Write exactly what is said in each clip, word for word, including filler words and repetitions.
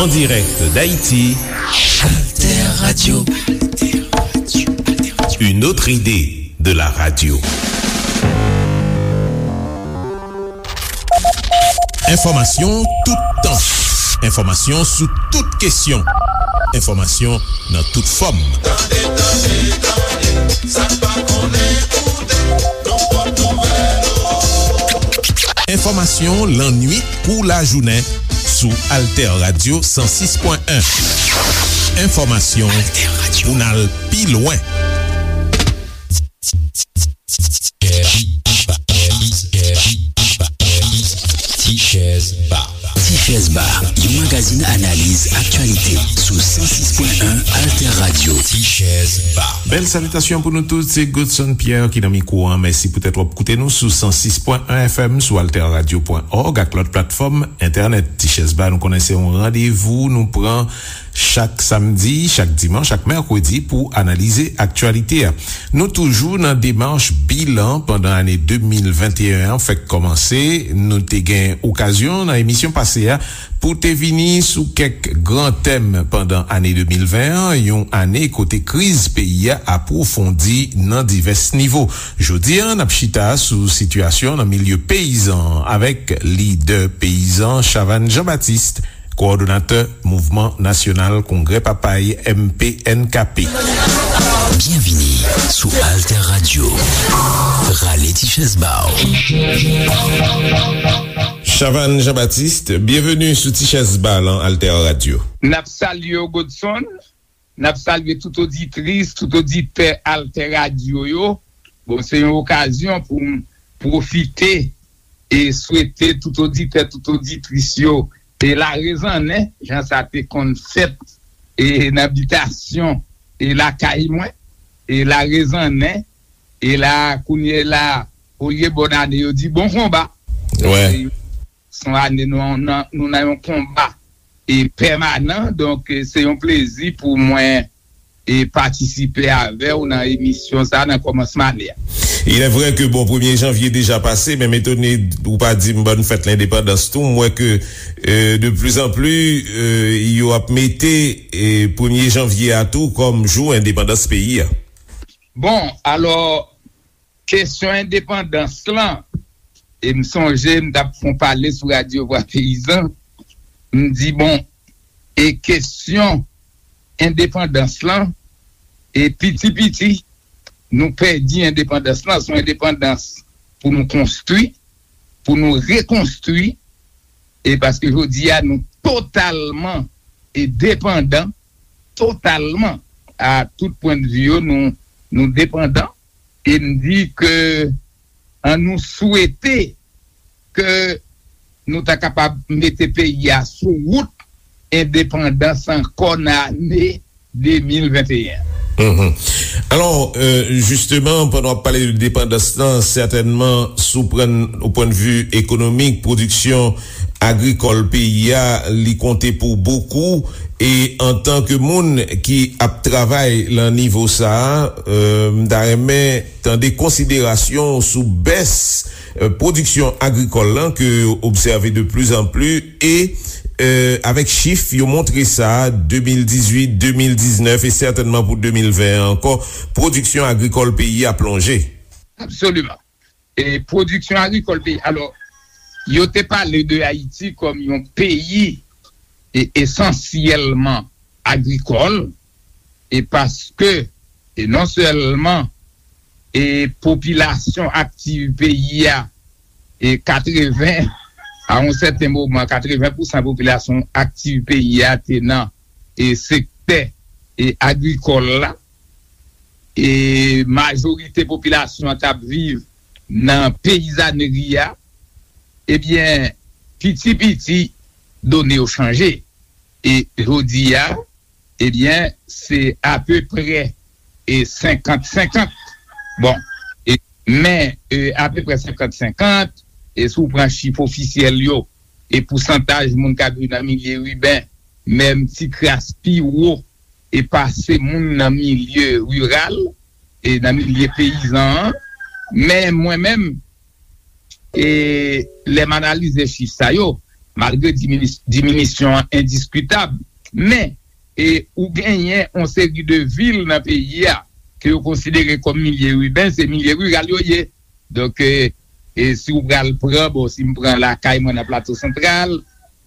En direct d'Haïti, Alter Radio. Une autre idée de la radio. Enfòmasyon toutan. Enfòmasyon sou tout kesyon. Enfòmasyon nan tout fòm. Tande, tande, tande, sa n pa konnen koute, nan pòt nouvèl. Enfòmasyon lannuit kou lajounen sou Alter Radio san sis pwen en. Enfòmasyon pou n al pi lwen. Tichèz Ba. Tichèz Ba, yon magazin analiz aktyalite sou san sis pwen en Alter Radio. Tichèz Ba. Bèl salitasyon pou nou tout, se Godson Pierre ki nan mikwo an. Mèsi poutèt w ap koute nou sou san sis pwen en F M, sou alterradio pwen org ak lòt platfòm entènèt. Tichèz Ba, nou konnen se yon randevou nou pran chak samdi, chak dimanch, chak mèkredi pou analize aktyalite a. Nou toujou nan demach bilan pandan ane de mil venteyen an fèk kòmanse. Nou te gen okazyon nan emisyon pase a pou te vini sou kèk gran tèm pandan ane de mil ven an, yon ane kote kriz peyi a apwofondi nan divès nivo. Jodi a, n ap chita sou sitiyasyon nan milye peyizan an avèk lidè peyizan Chavannes Jean-Baptiste, kowòdonatè Mouvman Nasyonal Kongrè Papay, M P N K P. Byenvini sou Alter Radio. Rale ti chèz ba w. Chavannes Jean-Baptiste, byenveni sou Ti Chèz Ba lan Alter Radio. N ap salye w, Godson. N ap salye tout oditris, tout oditè Alter Radio yo. Bon, se yon okazyon pou m pwofite e swete tout oditè, tout oditris yo e larezanne, jan sa te konn fèt e nan bitasyon e lakay mwen, e larezanne, e la, kounye la, olye bòn ane, yo di bon konba. Wè. Se yon ane nou, nou, nou nan yon konba e pèmanan, donk, e se yon plezi pou mwen e patisipe avè w nan emisyon sa a nan kòmansman ane a. Il est vrai que, bon, premye janvye deja pase, men m etone ou pa di m bòn fèt lendepandans tou. M wè ke, euh, de plus en plus, euh, yo ap mete, euh, premye janvye a tou kòm jou endepandans peyi a. Bon, alò, kesyon endepandans lan, e m sonje m t ap fè yon pale sou Radyo Vwa Peyizan, m di, bon, e kesyon endepandans lan, e piti piti, nou pèdi endepandans lan, se yon endepandans pou nou konstwi, pou nou rekonstwi, e paske jodi a nou totalman e depandan, totalman, a tout pwennvi yo, nou, nou depandan, e m di ke an nou swete ke nou ta kapab mete peyi a sou wout endepandans ankò nan ane de mil venteyen. Mhm. Alò, euh, jisteman, pandan w ap pale de depandans lan, sètènman, sou pran, o pwennvi ekonomik, pwodiksyon agrikòl peyi a, li konte pou bokou. E antanke moun ki ap travay lan nivo sa a, euh, m ta renmen tande konsiderasyon w sou bès, euh, pwodiksyon agrikòl lan ke yo obsève de plus en plus e, euh, avèk chif yo montre sa, de mil dizuit, de mil diznèf e sètènman pou de mil ven an ankò, pwodiksyon agrikòl peyi a plonje. Absoliman. E pwodiksyon agrikòl peyi. Alò, yo te pale de Ayiti kòm yon peyi e esansyèlman agrikòl, e paske, e non sèlman, e popilasyon aktiv peyi a, e katreven, a yon sèten moman, katreven pousan popilasyon aktiv peyi a te nan, e sektè, e agrikòl la, e majorite popilasyon an t ap viv nan peyizanri a, ebyen, piti piti, done yo chanje. E jodi a, ebyen, se apeprè e senkant senkant. Bon, e, men, e, apeprè senkant senkant, e si w pran chif ofisyèl yo, e pousantaj moun k ap viv nan milye iben, menm ti kras pi wo, e pase moun nan milye riral, e nan milye peyizan an. Men mwen menm, e lè m analize chif sa yo, malgre dimini- diminisyon an endiskitab, men e ou genyen yon seri de vil nan peyi a ke yo konsidere kòm milye iben, se milye riral yo ye. Donk, e, e si w pral pran, bon, si m pran lakay mwen nan Plato Santral,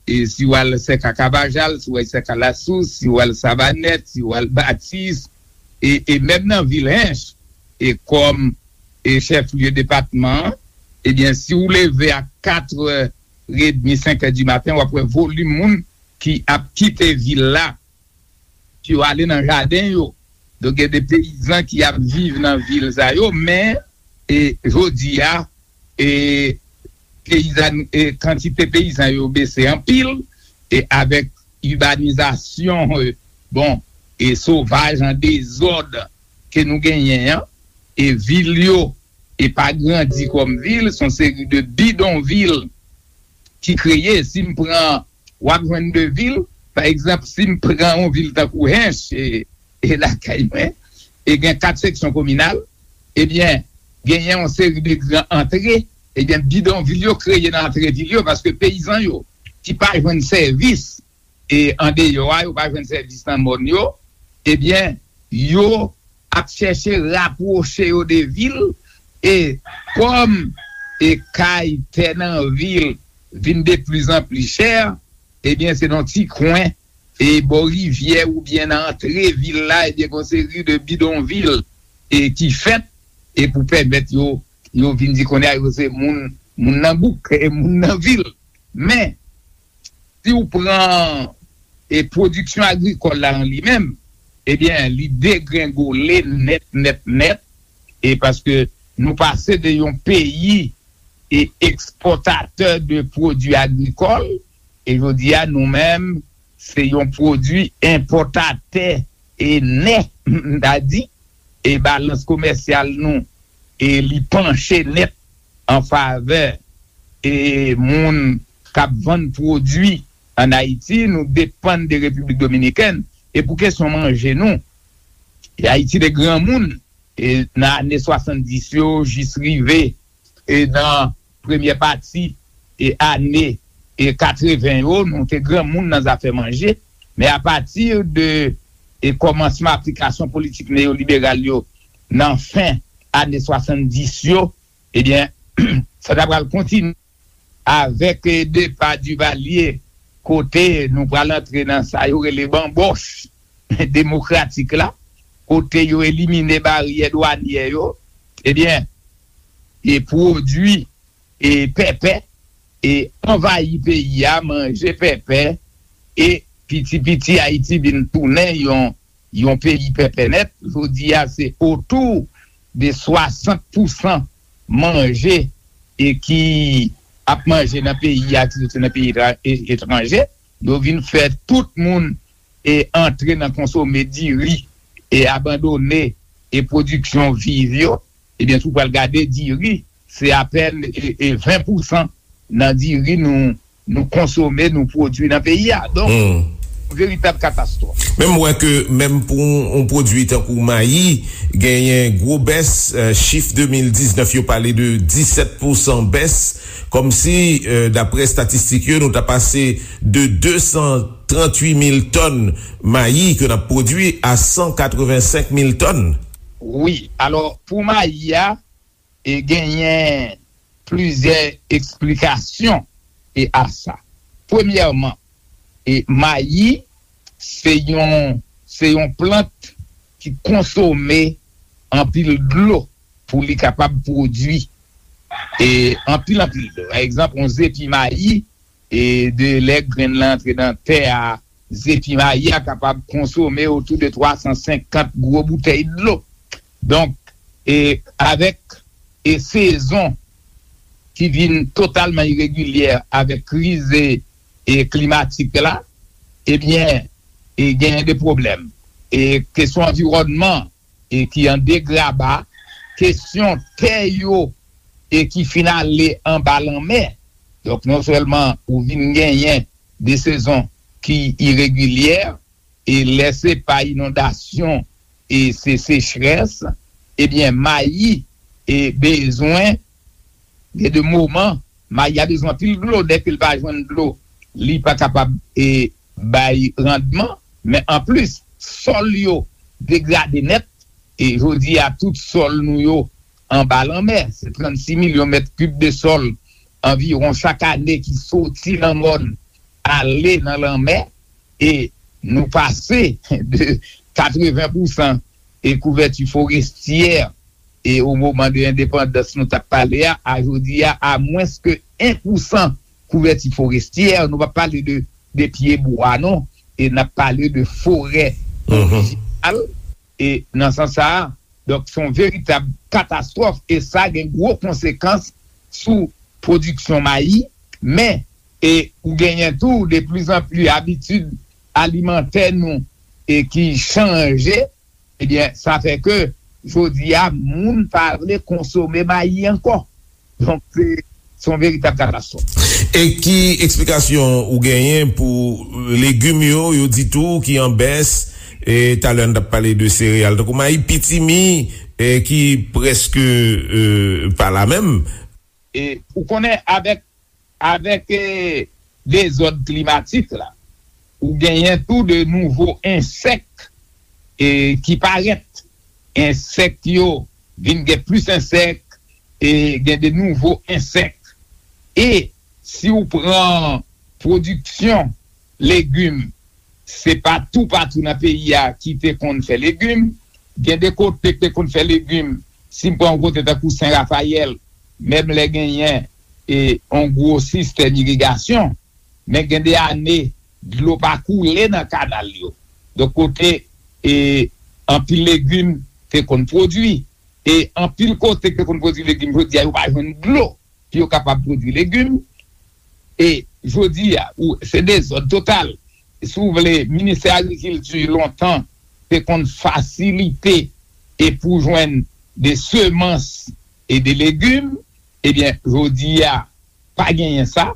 e si w al Sèka Kavajal, si w al Sèka Lasous, si w al Savanèt, si w al Batis, e, e menm nan vil Hench, e kòm e chèf lye depatman an, ebyen, si w leve a katrè edmi, senkè di maten, w ap wè volim moun ki ap kite vil la pou yo ale nan jaden yo. Donk, gen de peyizan ki ap viv nan vil sa yo, men e, jodi a, e, peyizan, e, kantite peyizan yo bese anpil, e avèk ibanizasyon, e, bon, e sovaj an dezòd ke nou genyen an, e vil yo, e pa grandi kòm vil, se yon seri de bidonvil ki kreye. Si m pran, w ap jwenn de vil, pa egzanp, si m pran yon vil tankou Hench, e, e lakay mwen, e gen kat seksyon kominal, ebyen, genyen yon seri de gran antre, ebyen, bidonvil yo kreye nan antre vil yo, paske peyizan yo ki pa jwenn sèvis, e andeyò a, yo pa jwenn sèvis nan mòn yo, ebyen, yo ap chèche rapwoche yo de vil, e kòm e kay, tè nan vil vin de plizanpli chè, ebyen, se nan ti kwen e bò rivyè oubyen nan antre vil la, ebyen, gen yon seri de bidonvil e ki fèt e pou pèmèt yo, yo vin di kounye a yo se moun, moun nan bouk, e moun nan vil. Men, si w pran e pwodiksyon agrikòl la an li menm, ebyen, li degrengole nèt, nèt, nèt, e paske nou pase de yon peyi e ekspòtatè de pwodui agrikòl, e jodi a, nou menm, se yon pwodui enpòtatè e nèt, m ta di, e balans komèsyal nou, e li panche nèt an favè e moun k ap vann pwodui ann Ayiti, nou depann de Repiblik Dominikèn. E pou kesyon manje nou, e Ayiti te granmoun, e nan ane swasanndis yo jis rive e nan premyè pati e ane e katreven yo, nou te granmoun nan zafè manje. Men apati de e kòmansman aplikasyon politik neyoliberal yo nan fen ane swasanndis yo, ebyen, sa ta pral kontinye avèk e depa Duvalier, kote nou pral antre nan sa yo rele banbòch demokratik la, kote yo elimine baryè dwanyè yo, ebyen, e pwodui e pèpè e anvayi peyi a, manje pèpè, e piti piti Ayiti vin tounen yon, yon peyi pèpè nèt. Jodi a, se otou de swasant pousan manje e ki ap manje nan peyi a, ki soti nan peyi etra- e- etranje. Yo vin fè tout moun e antre nan konsome diri e abandone e pwodiksyon viv yo. Ebyen, si w pral gade diri, se apèn e, e ven pousan nan diri nou, nou konsome, nou pwodui nan peyi a. Donk, hmm, veritab katastwòf. Men m wè ke menm pou yon pwodui tankou mayi, genyen gwo bès, eh, chif de mil diznèf yo pale de disèt pousan bès, kòmsi, eh, daprè estatistik yo, nou ta pase de de san tranntuit mil tòn mayi ke n ap pwodui a san katrevensenk mil tòn. Wi, alò, pou mayi a, e genyen plizyè eksplikasyon e a sa. Premyèman, e mayi se yon, se yon plant ki konsome anpil dlo pou li kapab pwodui e anpil, anpil dlo. Pa egzanp, yon zepi mayi, e de lè grenn lan antre nan tè a, zepi mayi a kapab konsome otou de twa san senkant gwo boutèy dlo. Donk, e avèk e sezon ki vin totalman iregilyè avèk kriz e, e klimatik la, ebyen, e genyen de pwoblèm. E kesyon anviwònman e ki an degraba, kesyon tè yo e ki fin ale anba lanmè. Donk, non sèlman ou vin genyen de sezon ki iregilyè, e lè se pa inondasyon e se sechrès, ebyen, mayi e bezwen, gen de moman, mayi a bezwen anpil dlo, dèke l pa jwenn dlo li pa kapab e bay randman, men anplis, sòl yo degrade nèt, e jodi a tout sòl nou yo anba lanmè, se trannsis milyon mèt kib de sòl anviwon chak ane ki soti nan mòn ale nan lanmè, e nou pase de katreven pousan e kouvèti forestyè e o moman de endepandans nou t ap pale a, a jodi a, a mwens ke en pousan kouvèti forestyè, nou p ap pale de, de pye bwa non, e n ap pale de forè orijinal, e nan sans sa a, donk se yon veritab katastwòf, e sa gen gwo konsekans sou pwodiksyon mayi, men, e ou genyen tou de plizanpli abitid alimantè nou e ki chanje, ebyen, sa fè ke jodi a, moun pa vle konsome mayi ankò. Donk, se se yon veritab katastwòf. E ki eksplikasyon ou genyen pou legim yo, yo di tou ki an bès, e talè n t ap pale de sereyal, tankou mayi, pitimi, e ki prèske e, pa la menm? E ou konnen, avèk, avèk e, dezòd klimatik la, ou genyen tou de nouvo ensèk e, ki parèt. Ensèk yo vin gen plis ensèk, e gen de nouvo ensèk. E si w pran pwodiksyon legim, se pa toupatou nan peyi a ki te konn fè legim. Gen de kote ki te konn fè legim, si m pran yon kote tankou Sen Rafayèl, menm lè genyen e, yon gwo sistèm irigasyon, men gen de ane, dlo pa koule nan kanal yo. Donk, kote e, anpil legim te konn pwodui, e anpil kote ki te konn pwodui legim, jodi a, yo pa jwenn dlo pou yo kapab pwodui legim. E jodi a, ou, se dezòd total. Si w vle, Ministè Agrikilti lontan te konn fasilite e pou jwenn de semans e de legim, ebyen, jodi a, pa genyen sa.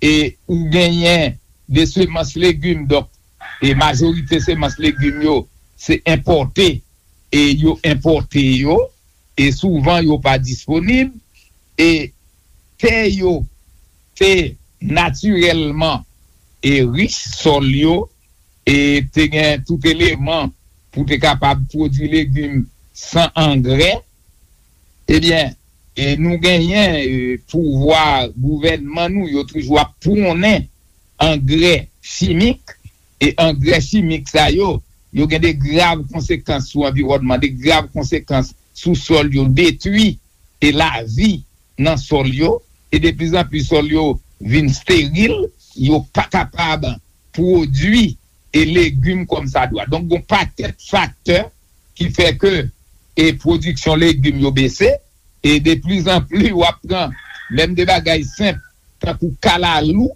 E ou genyen de semans legim, donk, e majorite semans legim yo, se enpòte, e yo enpòte yo, e souvan yo pa disponib, e tè yo te natirèlman e rich, sòl yo, e te gen tout eleman pou te kapab pwodui legim san angrè, ebyen, e nou genyen e, pouvwa gouvènman nou, yo toujou ap pwonnen angrè chimik, e angrè chimik sa yo, yo gen de grav konsekans sou anviwònman, de grav konsekans sou sòl yo, detwi e lavi nan sòl yo, e de plis an plis sòl yo vin steril, yo pa kapab pwodui e legim kòmsadwa. Donk, gon pakèt faktè ki fè ke e pwodiksyon legim yo bese, e de plis an plis w ap pran menm de bagay senp tankou kalalou,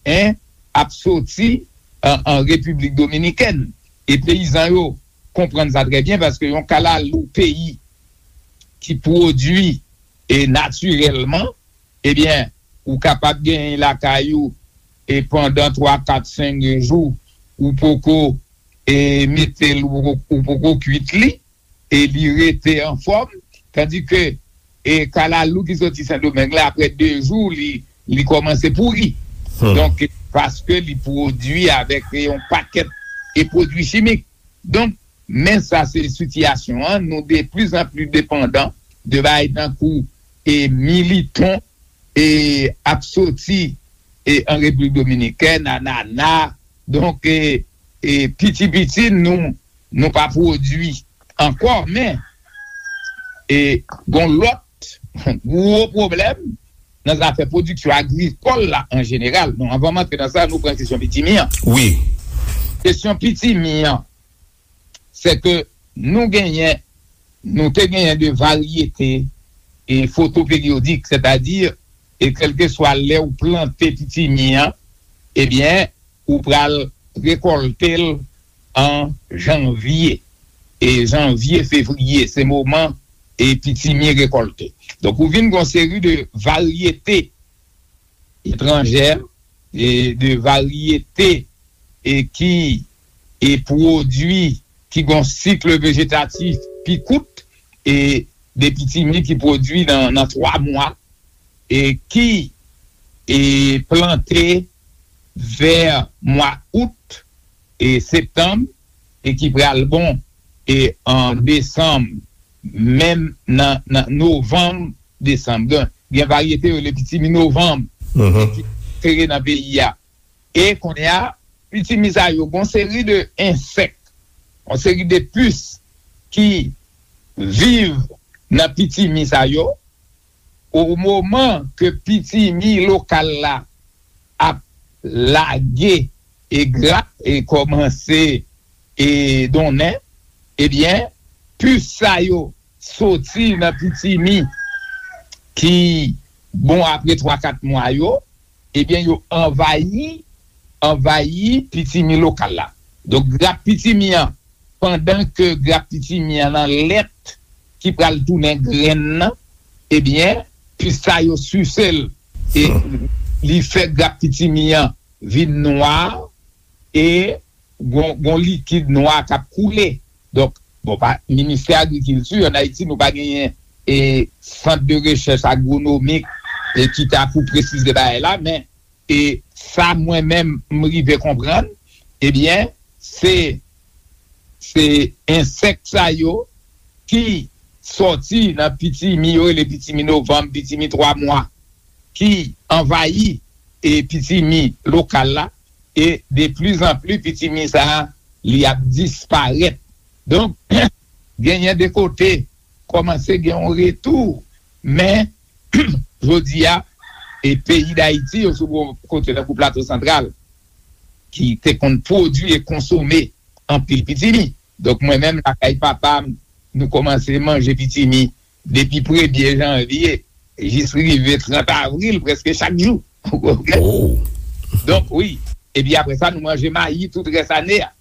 en, ap soti an, an Repiblik Dominikèn. E peyizan yo konprann sa trè byen, paske yon kalalou peyi ki pwodui e natirèlman, ebyen, ou kapab genyen lakay ou e pandan twa, kat, senk jou, ou poko e mete l, ou poko, ou poko kwit li, e li rete anfòm, tandike e kalalou ki soti Sendomeng la, apre de jou, li, li kòmanse pouri. Donk, paske li pwodui avèk e yon pakèt e pwodui chimik. Donk, men sa se sitiyasyon an, nou de plis an plis depandan de bagay tankou e militon e ap soti e an Repiblik Dominikèn, anana. Donk, e, e piti piti, nou, nou pa pwodui ankò, men e gon lòt gwo pwoblèm nan zafè pwodiksyon agrikòl la an jeneral. Non, anvan m antre nan sa, nou pran kesyon pitimi an. Wi. Kesyon pitimi an, se ke nou genyen, nou te genyen de varyete e fotoperiyodik, sètadi, e kèlkeswa lè ou plante pitimi an, ebyen, ou pral rekòlte l an janvye. E janvye, fevriye, se moman e pitimi rekòlte. Donk, ou vin gon seri de varyete etranjè, e de varyete e ki e pwodui ki gon sik vejetatif pi kout, e de pitimi ki pwodui nan, nan twa mwa, e ki e plante vè mwa out e septanm, e ki pral bon e an desanm, menm nan, nan novanm, desanm. Gen, gen varyete yo rele pitimi novanm, mhm, ki sere nan peyi a. E kounye a, pitimi sa yo, gon seri de ensèk, yon seri de pis ki viv nan pitimi sa yo, o moman ke pitimi lokal la ap lage e grap e kòmanse e donnen, ebyen, pis sa yo soti nan pitimi ki bon apre twa kat mwa yo, ebyen, yo anvayi, anvayi pitimi lokal la. Donk, grap pitimi an, pandan ke grap pitimi an nan lèt ki pral tounen grenn nan, ebyen, pis sa yo sise l, e li fè grap pitimi an vin nwa, e gon, gon likid nwa k ap koule. Donk, bon, pa, Ministè Agrikilti, ann Ayiti, nou pa genyen e sant de rechèch agwonomik e ki ta pou presize bagay la, men e sa mwen menm m rive konprann, ebyen, se, se ensèk sa yo ki sòti nan pitimi, yo rele pitimi novanm, pitimi twa mwa, ki anvayi e pitimi lokal la, e de pli zan pli pitimi sa a, li ap disparèt. Donk, genyen de kote kòmanse gen yon retou, men jodi a, e peyi Dayiti, yo sou bon kote tankou Plato Santral, ki te konn pwodui e konsome anpil pitimi. Donk, mwen menm, lakay papa m, nou kòmanse manje pitimi depi premye janvye jis rive trant avril, prèske chak jou. Ou konprann? Oh. Donk, wi. Epi apre sa, nou manje mayi tout rès ane a.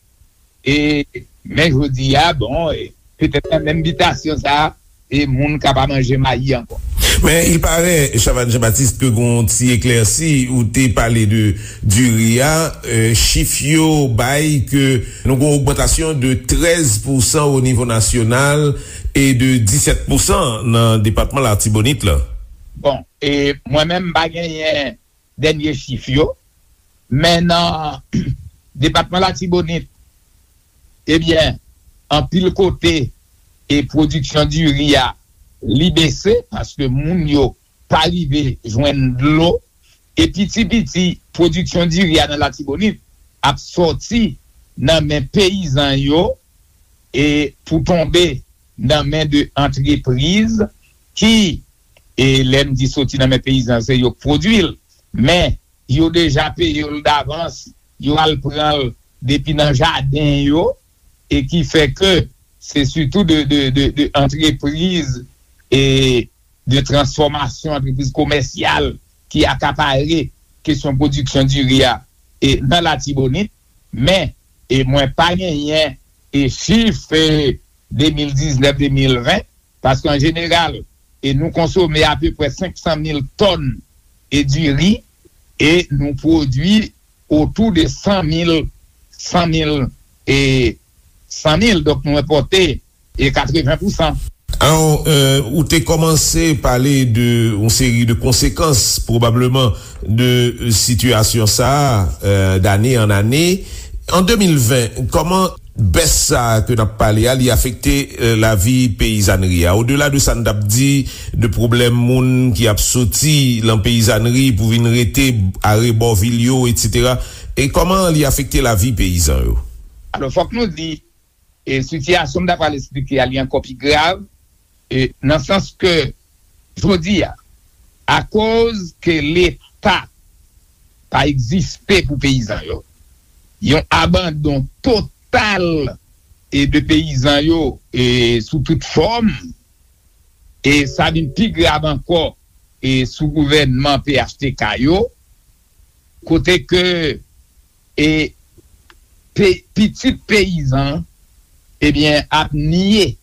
E, men jodi a, bon, e, petèt nan menm bitasyon sa a, e moun ka pa manje mayi ankò. Men, il paraît, Chavannes Jean-Baptiste, ke gon ti eklèsi, ou te pale de diri a, euh, chif yo bay ke nou gon ogmantasyon de trèz pousan o nivo nasyonal e de disèt pousan nan depatman Latibonit la. Bon, e mwen menm, m pa genyen dènye chif yo, men nan depatman Latibonit, ebyen, anpil kote, e pwodiksyon diri a, li bese, paske moun yo pa rive jwenn dlo, e piti piti, pwodiksyon diri a nan Latibonit ap sòti nan men peyizan yo, e pou tonbe nan men de antrepriz ki, e lè m di soti nan men peyizan, se yo k pwodui l, men yo deja peye l davans, yo al pran l depi nan jaden yo, e ki fè ke se sitou de, de, de, de antrepriz e de transfòmasyon, antrepriz komèsyal ki akapare kesyon pwodiksyon diri a, e nan Latibonit, men, e mwen pa genyen, e chif, e de mil diznèf, de mil ven, paske an jeneral, e nou konsome apeprè senk san mil tòn e diri, e nou pwodui otou de san mil, san mil, e san mil, donk nou enpòte, e katreven pousan. Alò, euh, ou te kòmanse pale de yon seri de konsekans, pwobableman, de sitiyasyon sa a, euh, dane an ane. An de mil ven, kòman bès sa a ke n ap pale a, li afekte, euh, lavi peyizanri a? Odela de sa n t ap di, de pwoblèm moun ki ap soti lan peyizanri pou vin rete arebò vil yo, etsetera, e kòman li afekte lavi peyizan yo? Alò, fòk nou di, e sitiyasyon m ta pral esplike a, li ankò pi grav, e nan sans ke, jodi a, akoz ke Leta pa egziste pou peyizan yo, yon abandon total e de peyizan yo, e sou tout fòm, e sa vin pi grav ankò, e sou gouvènman P H T K yo, kote ke, e pe-, pitit peyizan, ebyen, ap nye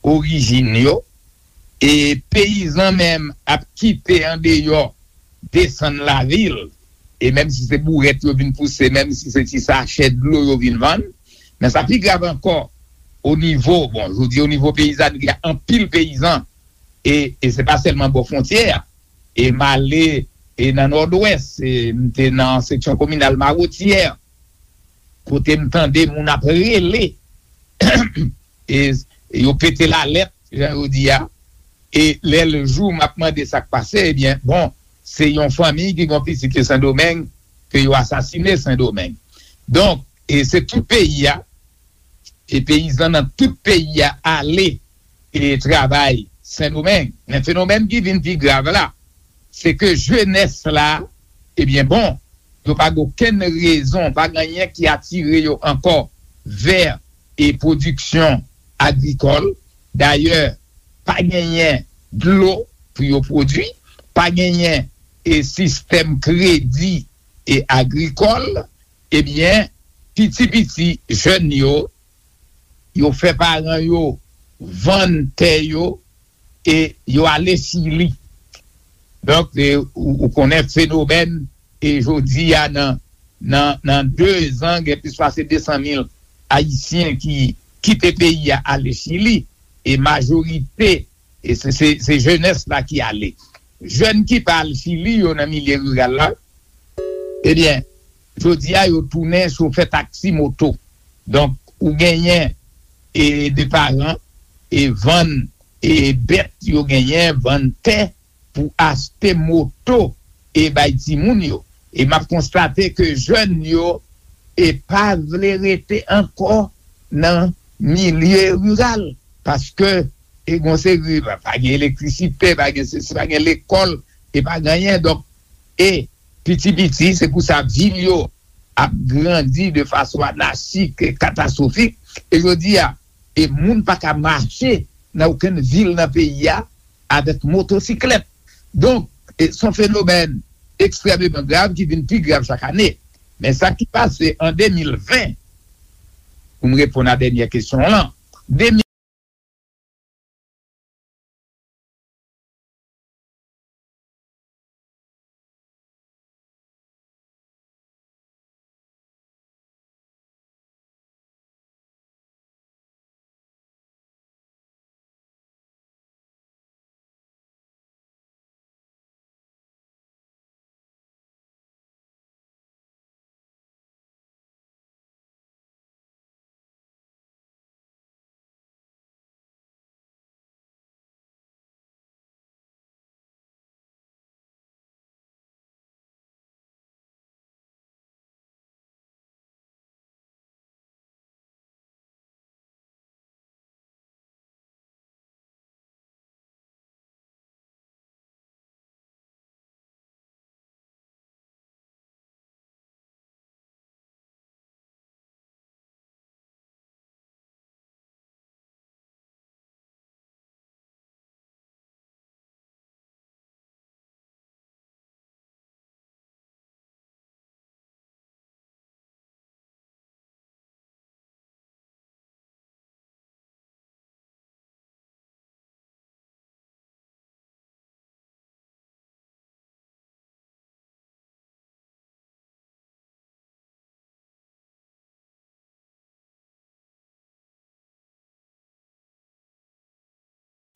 orijin yo, e peyizan menm ap kite andeyò, desann lavil, e menm si se bourèt yo vin pouse, menm si se ti sachè dlo yo vin vann, men sa pi grav ankò, o nivo, bon, jodi o nivo peyizanri a, anpil peyizan, e, e se pa sèlman bò fwontyè a, e m ale e nan Nòdwès, e m te nan seksyon kominal Mawotyè, kote m tande moun ap rele, e yo pete lalèt, jan yo di a, e lè l jou, m ap mande sa k pase, ebyen, bon, se yon fanmi ki gen yon pitit ki Sendomeng, ke yo asasine Sendomeng. Donk, e se tout peyi a, e peyizan nan tout peyi a ale e travay Sendomeng. Men fenomèn ki vin pi grav la, se ke jenès la, ebyen bon, yo pa gen okenn rezon, pa gen anyen ki atire yo ankò vè e pwodiksyon agrikòl. Dayè, pa genyen dlo pou yo pwodui, pa genyen e sistèm kredi e agrikòl, ebyen, piti piti jèn yo, yo fè paran yo vann tè yo e yo ale Chili. Donk, e, ou, ou konnen fenomèn, e jodi a nan, nan, nan de zan, gen plis pase de san mil Ayisyen ki kite peyi a ale Chili, e majorite, e se, se, se jenès la ki ale. Jèn ki pa al Chili yo nan milye riral la, ebyen, jodi a yo tounen chofè taksi moto. Donk, ou genyen e de paran e vann e bèt yo genyen, vann tè pou achte moto e bay timoun yo. E m ap konstate ke jèn yo e pa vle rete ankò nan milye riral, paske e gon seri, pa, pa gen elektrisite, pa gen sesi, pa gen lekòl, e pa gen anyen. Donk, e piti piti, se pou sa vil yo ap grandi de fason anachik e katastwofik. E jodi a, e moun pa ka mache nan okenn vil nan peyi a avèk motosiklèt. Donk, e se yon fenomèn ekstrèmeman grav ki vin pi grav chak ane. Men sa ki pase an de mil ven, pou m reponn a dènyè kesyon w lan, de mil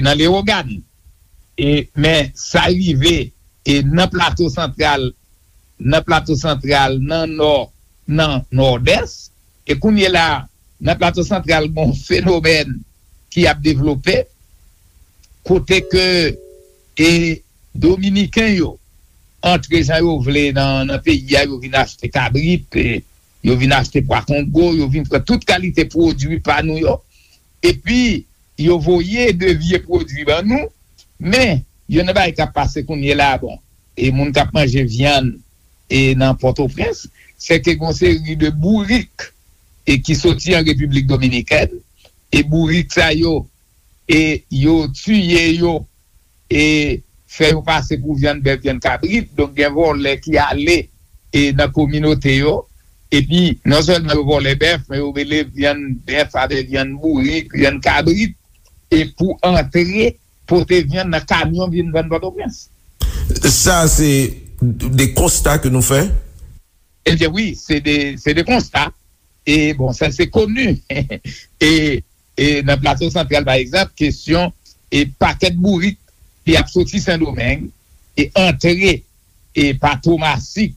nan Lewogàn. E, men sa rive e nan Plato Santral, nan Plato Santral, nan Nò, nan Nòdès. E kounye la, nan Plato Santral, gon fenomèn ki ap devlope, kote ke e Dominiken yo antre jan yo vle nan, nan peyi a, yo vin achte kabrit, e yo vin achte pwa Kongo, yo vin pran tout kalite pwodui pa nou yo. Epi, yo voye de vye pwodui ban nou, men, youn nan bagay k ap pase kounye la, bon, e moun k ap manje vyann e nan Pòtoprens, se ke gon seri de bourik e ki soti an Repiblik Dominikèn, e bourik sa yo, e yo tiye yo, e fè yo pase pou vyann bèf, vyann kabrit. Donk, gen vòlè ki ale e nan kominote yo, epi non sèlman yo vòlè bèf, men yo mele vyann bèf avèk vyann bourik, vyann kabrit, e pou antre pote vyann nan kamyon vin vann Pòtoprens. Sa se de konsta ke nou fè? Ebyen wi, se de, se de konsta. E bon, sa se koni. E, e nan Plato Santral, pa egzanp, kesyon e pakèt bourik ki ap soti Sendomeng e antre e pa Tomasik,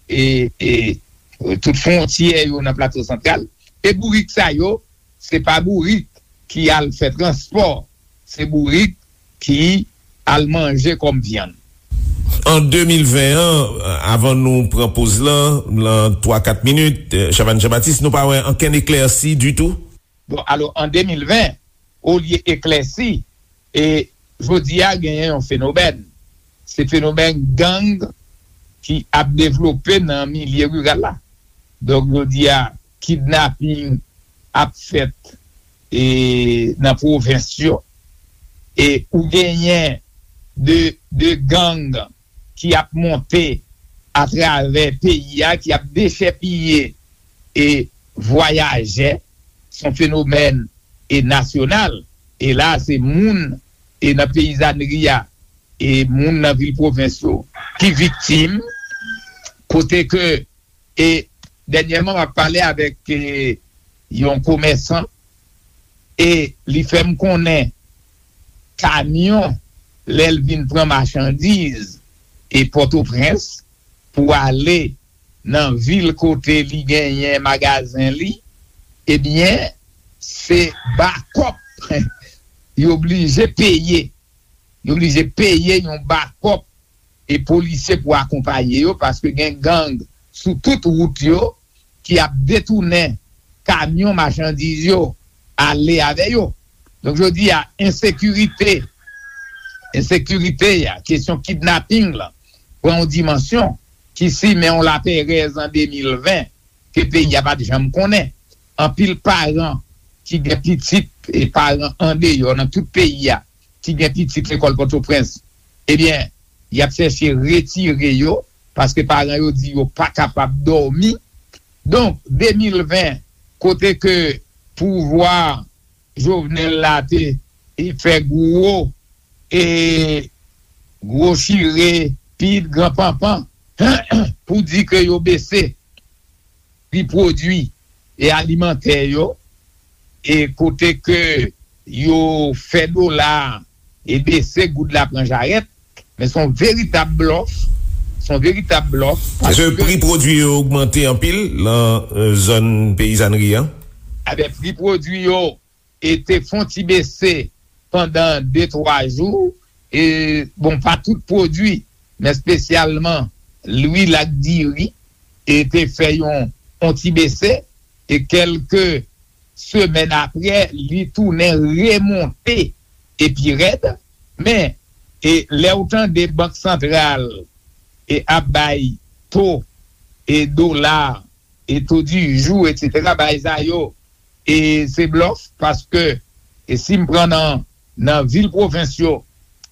e, e tout fwontyè yo nan Plato Santral. E bourik sa yo, se pa bourik ki al fè transpò, se bourik ki al manje kòm vyann. An de mil ven an, avan nou pran poz lan, lan twa kat minit, Chavannes Jean-Baptiste, nou pa wè ankenn eklèsi ditou? Bon, alò, an de mil ven, olye eklèsi, e jodi a genyen yon fenomèn. Se fenomèn gang ki ap devlope nan milye riral la. Donk, jodi a, kidnaping ap fèt e nan pwovens yo. E ou genyen de, de gang ki ap monte atravè peyi a, ki ap dechèpiye e vwayajè. Se yon fenomèn e nasyonal. E la, se moun e nan peyizanri a, e moun nan vil pwovens yo ki viktim, kote ke, e dènyèman, m ap pale avèk, e, yon komèsan, e li fè m konnen kamyon, lè l vin pran machandiz e Pòtoprens pou ale nan vil kote li genyen magazen li, ebyen, se bakòp yo blije peye. Yo blije peye yon bakòp e polisye pou akonpaye yo, paske gen gang sou tout wout yo ki ap detounen kamyon machandiz yo, ale avè yo. Donk, jodi a, ensekirite, ensekirite a, kesyon kidnaping lan, pran yon dimansyon ki simen yon laperèz an de mil ven ke peyi a pa t janm konnen. Anpil paran ki gen pitit e paran andeyò nan tout peyi a, ki gen pitit lekòl Pòtoprens, ebyen, y ap chèche retire yo, paske paran yo di yo pa kapab dòmi. Donk, de mil ven, kote ke pouvwa Jovenel la te, e fè gwo, e gwo chire, pit, gran panpan, pou di ke yo bese pri pwodui e alimantè yo, e kote ke yo fè dola e bese, goud la pran jarèt, men se yon veritab blòf, se yon veritab blòf. Èske paske pri pwodui yo ogmante anpil lan, e, zòn peyizanri an? Ebyen, pri pwodui yo e te fon ti bese pandan de, twa jou, e, bon, pa tout pwodui, men espesyalman lwil ak diri, e te fè yon, yon ti bese, e kèlke semèn apre, li tounen remonte e pi rèd, men, e lè w tande Bank Santral, e ap bay to, e dola, e to di jou, etsetera, bagay sa yo, e se blòf, paske, e si m pran nan, nan vil pwovens yo,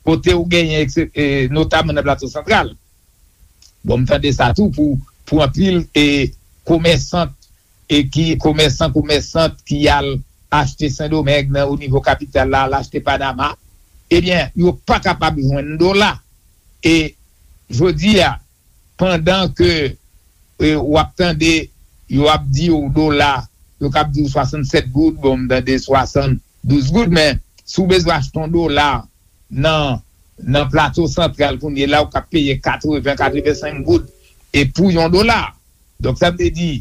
kote ou genyen, ekse-, e notaman nan Plato Santral, bon, m tande sa tou pou, pou anpil, e komèsant, e ki, komèsan, komèsant ki al achte Sendomeng nan, o nivo kapital la, al achte Panama, ebyen, yo pa kapab jwenn dola. E jodi a, pandan ke, e, w ap tande, yo ap di w dola, yo k ap di w swasannsèt goud, bon, m tande swasanndouz goud, men si w bezwen achte yon dola nan, nan Plato Santral kounye la, ou k ap peye katreven, katrevensenk goud, e pou yon dola. Donk, sa vle di,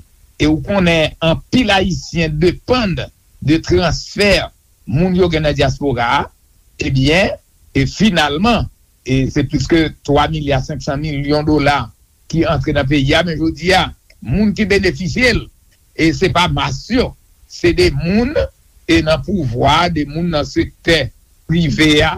e ou konnen anpil Ayisyen depann de transfè moun yo gen nan dyaspora a, ebyen, e finalman, e se plis ke twa milya senk san milyon dola ki antre nan peyi a, men jodi a, moun ki benefisye l, e se pa mas yo, se de moun, e nan pouvwa, de moun nan sektè prive a,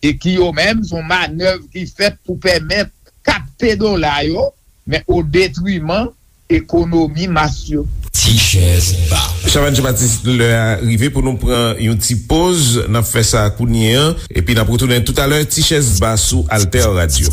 e ki yo menm, se yon manèv ki fèt pou pèmèt kapte dola yo, men o detriman ekonomi mas yo. Ti chèz ba. Chavannes Jean-Baptiste, lè a rive pou nou pran yon ti poz. N ap fè sa kounye an, epi n ap retounen toutalè. Ti chèz ba sou Alter Radio.